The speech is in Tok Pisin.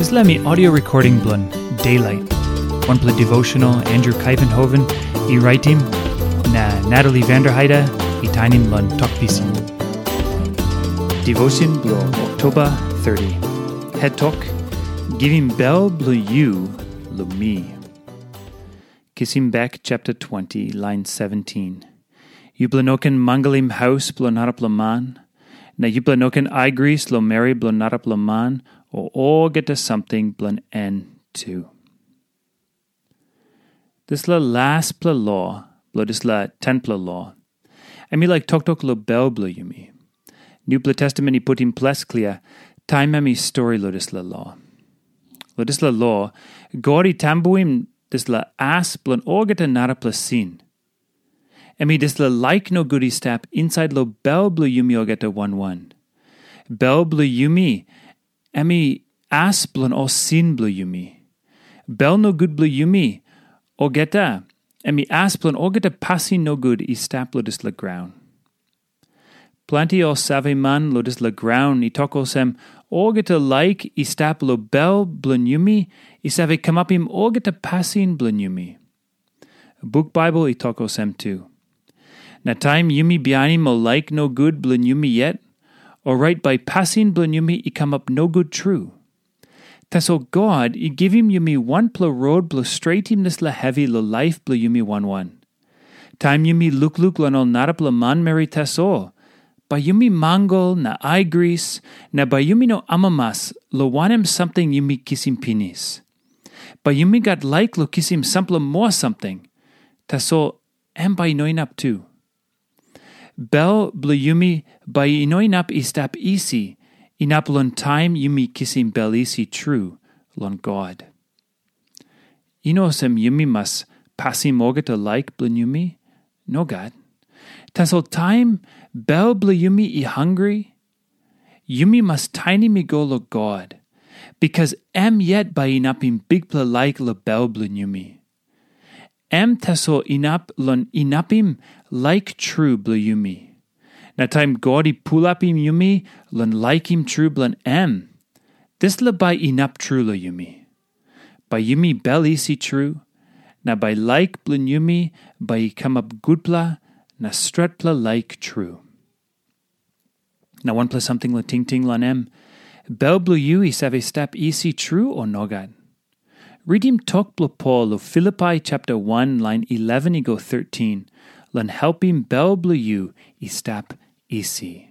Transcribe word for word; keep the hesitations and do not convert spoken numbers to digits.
Dispela mi audio recording bilong Daylight, wanpela devotional Andrew Kuyvenhoven i raitim, na Natalie Vanderheide i tainim long Tok Pisin. Devotion bilong Oktoba thirty. Het tok, Givim bel bilong yu long mi. Kisim bek chapter twenty, line seventeen. Yupela no ken mangalim haus bilong narapela man, na yupela no ken aigris long meri bilong narapela man, o olgeta samting bilong en tu. Dispela laspela lo bilong dispela tenpela lo, em i laik toktok long bel bilong yumi. Nupela Testamen i putim ples klia taim em i stori long dispela lo. Long dispela lo, God i tambuim dispela as bilong olgeta narapela sin. Em i dispela laik nogut i stap insait long bel bilong yumi olgeta wan wan. Bel bilong yumi, em i as bilong ol sin bilong yumi. Bel nogut bilong yumi olgeta, em i as bilong olgeta pasin nogut i stap long dispela graun. Planti ol saveman long dispela graun i tok olsem, olgeta laik i stap long bel bilong yumi i save kamapim olgeta pasin bilong yumi. Buk Baibel i tok olsem tu. Na taim yumi bihainim ol laik nogut bilong yumi yet, orait bai pasin bilong yumi i kamap nogut tru. Tasol God i givim yumi wanpela rot bilong stretim dispela hevi long laip bilong yumi wan wan. Taim yumi lukluk long ol narapela manmeri tasol, bai yumi mangal na aigris, na bai yumi no amamas long wanem samting yumi kisim pinis. Bai yumi gat laik long kisim sampela moa samting, tasol em bai i no inap tu. Bel bilong yumi bai i no inap i stap isi, inap long taim yumi kisim bel isi tru long God. I no olsem yumi mas pasim olgeta laik bilong yumi. Nogat. Tasol taim bel bilong yumi i hangre, yumi mas tainim i go long God, bikas em yet bai inapim bikpela laik long bel bilong yumi. Em tasol inap long inapim laik tru bilong yumi. Na taim God i pulapim yumi long laikim tru bilong em, dispela bai inap tru long yumi. Bai yumi bel isi tru, na bai laik bilong yumi bai i kamap gutpela na stretpela laik tru. Na wanpela samting long tingting long em, bel bilong yu i save stap isi tru o nogat? Ritim tok bilong Pol long Filipai chapter one lain eleven i go thirteen, long helpim bel bilong yu i stap isi.